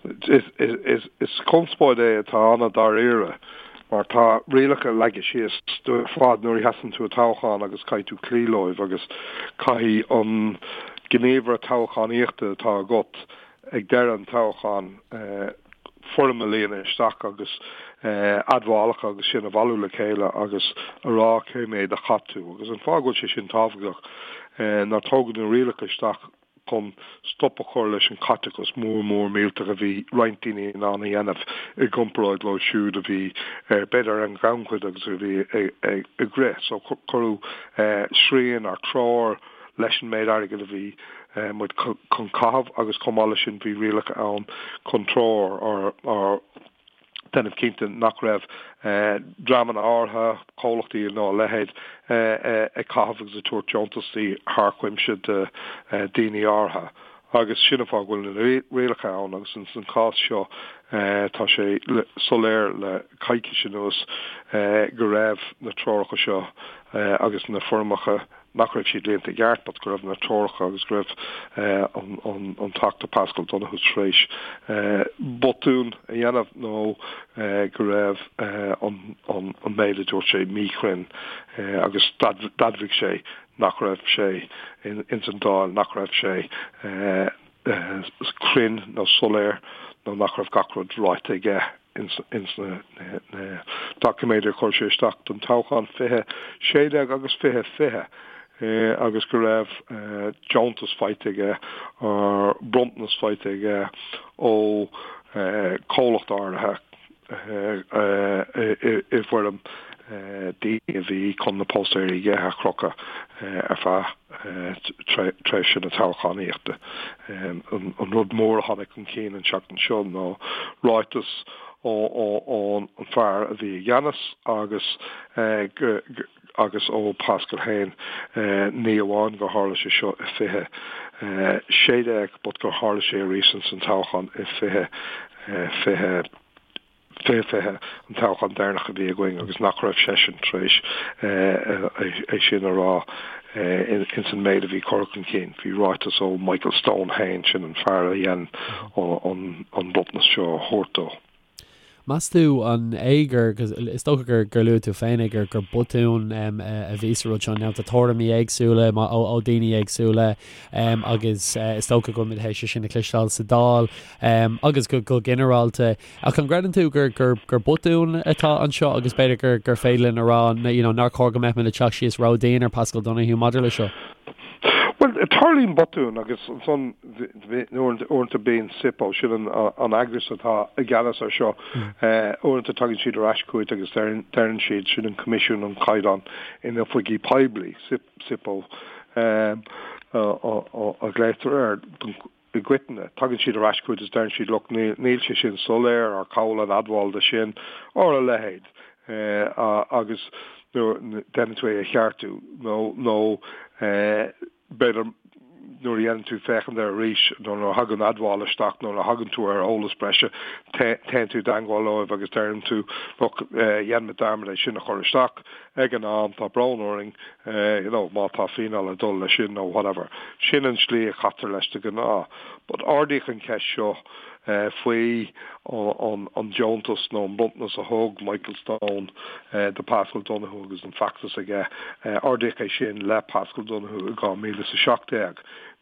Is conspóid é atá an-dáiríre mar tá rialacha leagtha síos dúinn ar fad nuair a sheasann tú i toghchán agus caithfidh tú cloí leo agus caithfidh an gníomhaire toghchánaíochta atá agat ag deireadh an toghcháin foirm a líonadh isteach agus admhálacha agus sin a bhailiú le chéile agus a rá cé mhéad a chaith tú. Agus an fáth go bhfuil sé sin tábhachtach ná tógadh na rialacha isteach chun stop a chur leis an chaiteachas mór mór millteach a bhí roinnt daoine in ann a dhéanamh i gcomparáid leo siúd a bhí ar b'fhéidir ar an ghannchuid agus a bhí ag rith. So cuireadh srian or treoir leis an méid airgid a bhí muid chun caitheamh agus chomh maith leis sin bhí rialacha ann chun treoir or déanamh cinnte nach raibh dreamanna áirithe, comhlachtaí nó a leithéid, ag caitheamh agus ag tabhairt deontasaí thar cuimse do daoine áirithe. Agus sin an fáth go bhfuil na rialacha ann agus ins an chás seo tá sé soiléir le coicís anuas go raibh na treoracha seo agus na foirmeacha nach raibh siad líonta i gceart but go raibh na treoracha agus go raibh an Teachta Paschal Donohoe tar éis botún a dhéanamh nó go raibh an méid a dúirt sé míchruinn agus d'admhaigh sé nach raibh sé ins an Dáil, nach raibh sé cruinn nó soiléir nó nach raibh gach rud ráite aige. ins na doiciméid a chuir sé isteach don toghchán 2016 agus 2020 agus go raibh deontas faighte aige, bronntanas faighte aige ó chomhlacht áirithe i bhfoirm daoine a bhí chun na póstaeirí aige a chrochadh ar feadh tréimhse na toghchánaíochta. An rud mór a tháinig chun cinn an tseachtain seo ná ráiteas ón fear a bhí i gceannas agus agus ó Paschal féin, ní amháin gur tharla sé seo i 2016 but gur tharla sé arís ins an toghchán i 2020. 2020, an toghchán deireanach a bhí againn agus nach raibh seisean tar éis é sin a rá ins an méid a bhí curtha chun cinn. Bhí ráiteas ó Michael Stone féin, sin an fear a dhein an bronntanas seo a thabhairt dó. Meas tú an é gur, is dócha gur gur luaigh tú féin é, gur gur botún a bhí sa rud seo, now tá tuairimí éagsúla ó daoine éagsúla agus is dócha go bhfuil muid théis é sin a chloisteáil sa Dáil agus go go ginearálta. Ach an gcreideann tú gur, gur, gur botún atá anseo agus b'fhéidir gur, gur féidir linn a rá you know, nár chóir go mbeadh muid ag teacht síos ródhian ar Paschal Donohoe maidir le seo? Bhuel, tarlaíonn botúin agus ansan uaireanta bíonn SIPO, sin an, an eagras atá i gceannas ar seo, uaireanta tagann siad ar ais chugat agus deireann siad, sin an Coimisiún um Chaighdeán in Oifigí Poiblí, SIPO, a ghlaotar air don i gcoitinne, tagann siad ar ais chugat is deireann siad look, níl sé sin soiléir or cá bhfuil an admháil de sin or a leithéid agus déanann tú é a cheartú nó nó b'fhéidir nuair a dhéanann tú féachaint air arís nó nuair a thagann admháil isteach nó nuair a thagann tú ar eolas breise téann tú i dteangmháil leo agus deireann tú look dhein muid dearmad é sin a chur isteach ag an am, tá brón orainn, you know, má tá fíneáil ag dul leis sin nó whatever. Sin an slí a chaitear leis de ghnáth. But ardaíodh an cheist seo faoi an deontas nó an bronntanas a thug Michael Stone do Paschal Donohoe agus an feachtas aige, ardaíodh é sin le Paschal Donohoe i 2017.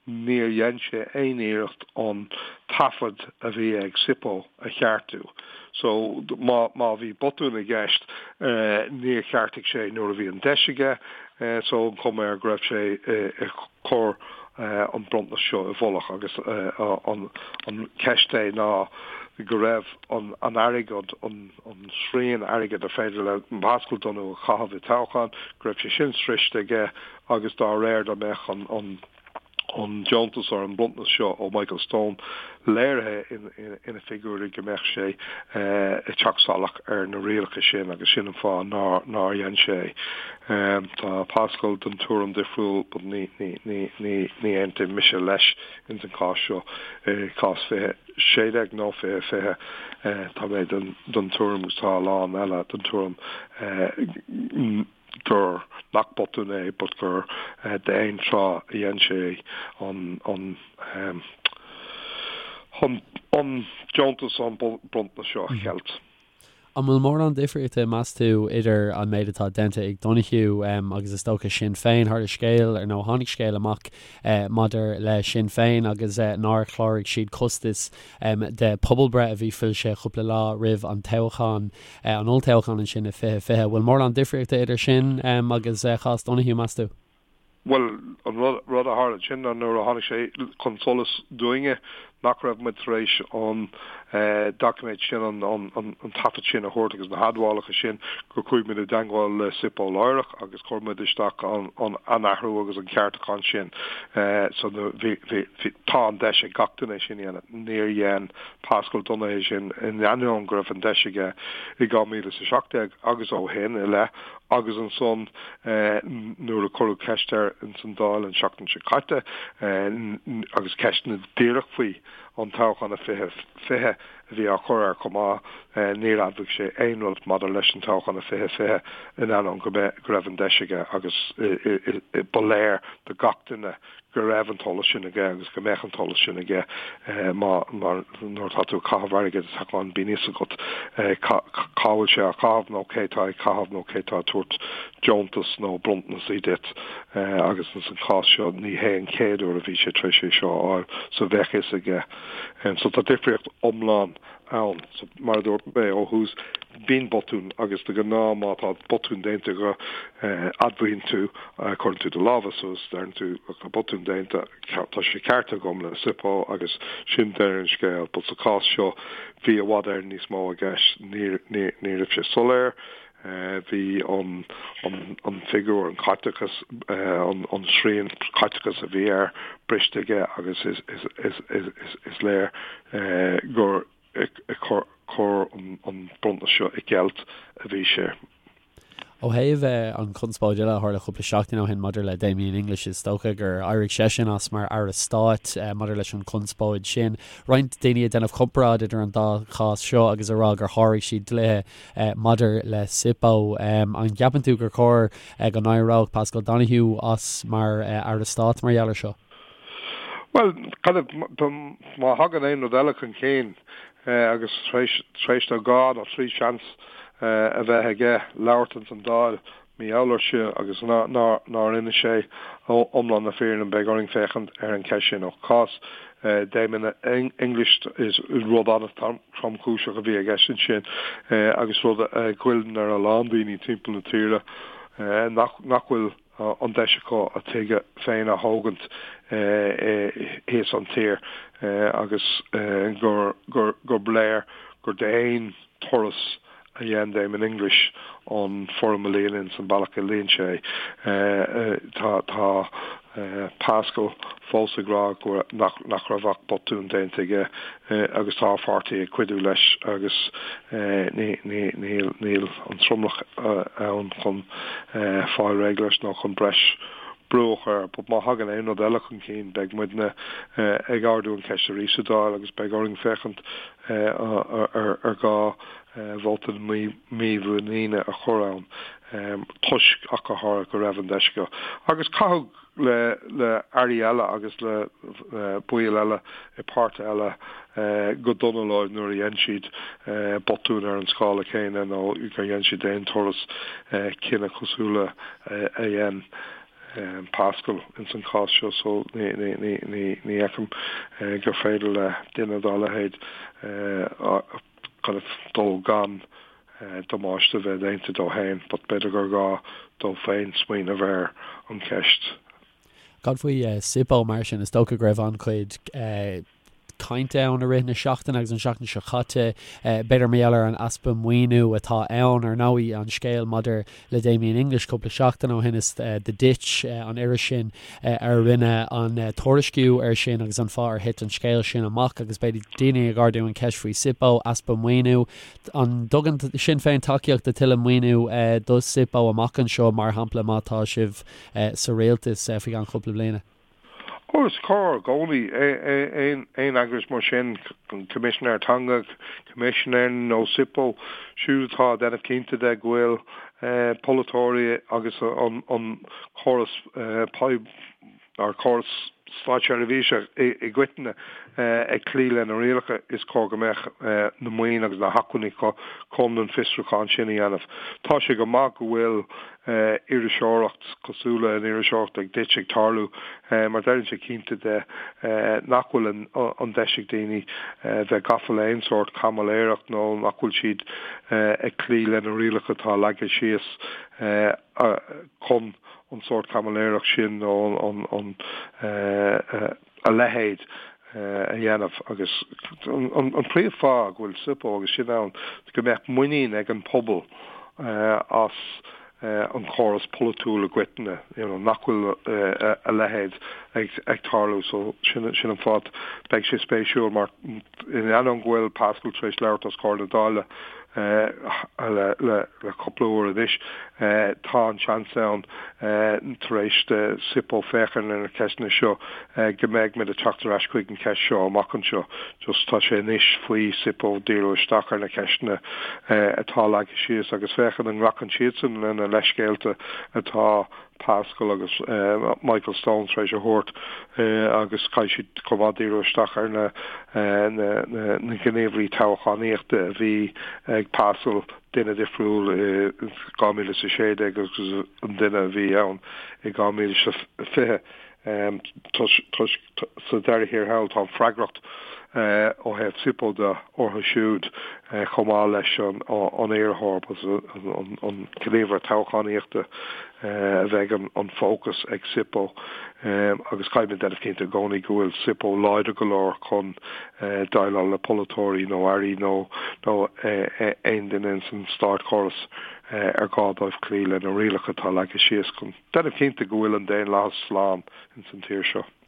Níor dhein sé aon iarracht an taifead a bhí ag SIPO a cheartú. So, má, má bhí botún i gceist, níor cheartaigh sé nuair a bhí an deis aige. So, an chuma air go raibh sé ag cur an bronntanas seo i bhfolach agus an, an cheist é ná go raibh an, an airgead, an, an srian airgid ar féidir le Paschal Donohoe a chaitheamh i toghchán, go raibh sé sin sroiste aige agus dá réir dá mbeadh an, an, an deontas or an bronntanas seo ó Michael Stone léirithe ina figiúirí go mbeadh sé ag teacht salach ar na rialacha sin agus sin an fáth nár nár dhein sé é. Tá Paschal den tuairim difriúil but ní ní ní ní ní aontaím mise leis ins an cás seo. I gcás 2016 nó 2020 tá mé den den tuairim agus tá a lán eile den tuairim gur, nach botún é, but gur d'aon tráth a dhein sé an, an, Chun an deontas an bronntanas seo a cheilt. An bhfuil mórán difríochta, meas tú, idir an méid atá déanta ag Donohoe agus is dócha Sinn Féin? Tharla scéal, ar nó tháinig scéal amach maidir le Sinn Féin agus nár chláraigh siad costais de pobalbhreith a bhí foilsithe cúpla lá roimh an toghchán, an olltoghchán ansin i 2020. An bhfuil mórán difríochta idir sin agus cás Donohoe, meas tú? Bhuel, an rud a tharla ansin ná nuair a tháinig sé chun solais dúinne nach raibh muid tar éis an doiciméad sin, an taifead sin a thabhairt agus na hadmhálacha sin, gur chuaigh muid i dteangmháil le SIPO láithreach agus chuir muid isteach an athrú agus an ceartúchán sin. So bhí, bhí, tá an deis ag gach duine é sin a dhéanamh. Níor dhein Paschal Donohoe é sin in ainneoin go raibh an deis aige i 2017 agus ó shin i leith Agus ansan nuair a cuireadh ceist air ins an Dáil an seachtain seo caite, agus ceisteanna díreach faoi an toghchán i 2020 a bhí á chur air chomh maith, níor admhaigh sé aon rud maidir leis an toghchán i 2020 in ainneoin go raibh an deis aige agus ba léir do gach duine go raibh an t-eolas sin aige agus go mbeadh an t-eolas sin aige má nuair atá tú ag caitheamh airgid sa toghchán bíonn fhios agat cá bhfuil sé á chaitheamh nó cé tá ag caitheamh nó cé tá ag tabhairt deontas nó bronntanas duit agus ins an chás seo ní hé an chéad uair a bhí sé tar éis é seo a fháil so bheadh fhios aige. So tá difríocht iomlán ann. So, mar a dúirt mé ó thús, bíonn botún agus de ghnáth má tá botún déanta agat, admhaíonn tú, cuireann tú do lámha suas, deireann tú tá botún déanta, tá sé ceartaithe agam le SIPO agus sin deireadh an scéil. But sa chás seo, bhí i bhfad Éireann níos mó i gceist, ní, ní, ní raibh sé soiléir, bhí an, an, an figiúr, an caiteachas, an, an srian caiteachais a bhí air briste aige agus is, is, is, is, is, is léir gur ag cur an bronntanas seo i gceilt a bhí sé. Ó thaobh an chonspóid eile a tharla cúpla seachtain ó shin maidir le Damien English, is dócha gur éirigh seisean as mar Aire Stáit maidir leis an chonspóid sin. Roinnt daoine ag déanamh comparáid idir an dá chás seo agus ag rá gur sháraigh siad dlíthe maidir le SIPO. An gceapann tú gur chóir go n-éireodh Paschal Donohoe as mar Aire Stáit mar gheall air seo? Bhuel, kind of, má thagann aon rud eile chun cinn agus tar éis dó dhá nó trí seans a bheith aige labhairt ins an Dáil mar gheall air seo agus nár inis sé iomlán na fírinne, beidh orainn féachaint ar an cheist sin. Ó chás Damien English is rud an-tromchúiseach a bhí i gceist ansin agus rud a ghoilleann ar a lán daoine timpeall na tíre nach bhfuil an deis acu a dtigh féin a thógaint thíos an tír agus gur léir gur d'aon turas a dhein Damien English an foirm a líonadh ins an bealach a líon sé é. Tá Paschal fós ag rá go nach nach raibh ach botún déanta aige agus tá a pháirtí ag cuidiú leis agus níl níl an tromlach ann chun fáil réidh leis nó chun breis brú a chur air. But má thagann aon rud eile chun cinn beidh muidne ag ardú an cheist arís sa Dáil agus beidh orainn féachaint ar gá vóta mímhuiníne a chur ann toisc ach go háirithe go raibh an deis acu. Agus caitheadh le le airí eile agus le baill eile i páirtithe eile go dona leo nuair a dhein siad botún ar an scála céanna nó gur dhein siad d'aon turas cinneadh cosúil le a dhein Paschal ins an chás seo so ní fheicim gur féidir le duine dá leithéid kind of dul gan damáiste a bheith déanta dó féin but b'fhéidir gur gá dó féin smaoineamh ar an cheist. Cad faoi SIPO mar sin? Is dócha go raibh an-chuid cainte ann i rith na seachtaine agus an seachtain seo caite, b'fhéidir mar gheall ar an easpa maoiniú atá ann. Ar ndóigh, an scéal maidir le Damien English cúpla seachtain ó shin is The Ditch, an iris sin a rinne an tuairisciú air sin agus an fáth ar thit an scéal sin amach agus b'fhéidir daoine ag ardú an cheist faoi SIPO, easpa maoiniú. An dtugann Sinn Féin tacaíocht do tuilleadh maoiniú do SIPO amach anseo, mar shampla má tá sibh sa rialtas faoi cheann cúpla bliana? Ó, is cóir i gcónaí aon eagras mar sin, an Coimisinéir Teanga, Coimisinéir nó SIPO, siúd atá ag déanamh cinnte de go bhfuil polaiteoirí agus an córas. ár córas státseirbhíse i gcoitinne ag cloí le na rialacha, is cóir go mbeadh na maoin agus na hacmhainní chun an fiosrúchán sin a dhéanamh. Tá sé go maith go bhfuil iriseoireacht cosúil le an iriseoireacht ag duit ag tarlú mar déanann sé cinnte de nach bhfuil an deis ag daoine bheith gafa le aon sórt caimiléireacht nó nach bhfuil siad ag cloí le na rialacha atá leagtha síos chun an sórt caimiléireacht sin nó an a leithéid a dhéanamh agus an príomhfháth go bhfuil SIPO agus sin ann go mbeadh muinín ag an pobal as an chóras polaitiúil i gcoitinne, you know, nach bhfuil a leithéid ag tarlú. So sin sin an fáth beidh sé spéisiúil mar in ainneoin go bhfuil Paschal tar éis labhairt os comhair na Dála le le cúpla uair anois, tá an seans ann tar éis do SIPO féachaint ar na ceisteanna seo go mbeidh muid ag teacht ar ais chuig an cheist seo amach anseo. Just tá sé anois faoi SIPO díriú isteach ar na ceisteanna atá leagtha síos agus féachaint an nglacann siadsan lena leithscéalta atá Paschal agus Michael Stone tar éis a thabhairt agus caithfidh siad chomh maith díriú isteach ar na na gníomhairí toghchánaíochta a bhí ag Paschal, duine difriúil i 2016 agus an duine a bhí ann i 2020. Toisc sa deireadh thiar thall tá an freagracht ó thaobh SIPO de orthu siúd chomh maith leis an iarrthóir, an gníomhaire toghchánaíochta a bheidh an fócas ag SIPO agus caithfidh muid déanamh cinnte i gcónaí go bhfuil SIPO láidir go leor chun déileáil le polaiteoirí nó airí nó aon duine ins an státchóras ar gá dóibh cloí le na rialacha atá leagtha síos chun déanamh cinnte go bhfuil an daonlathas slán ins an tír seo.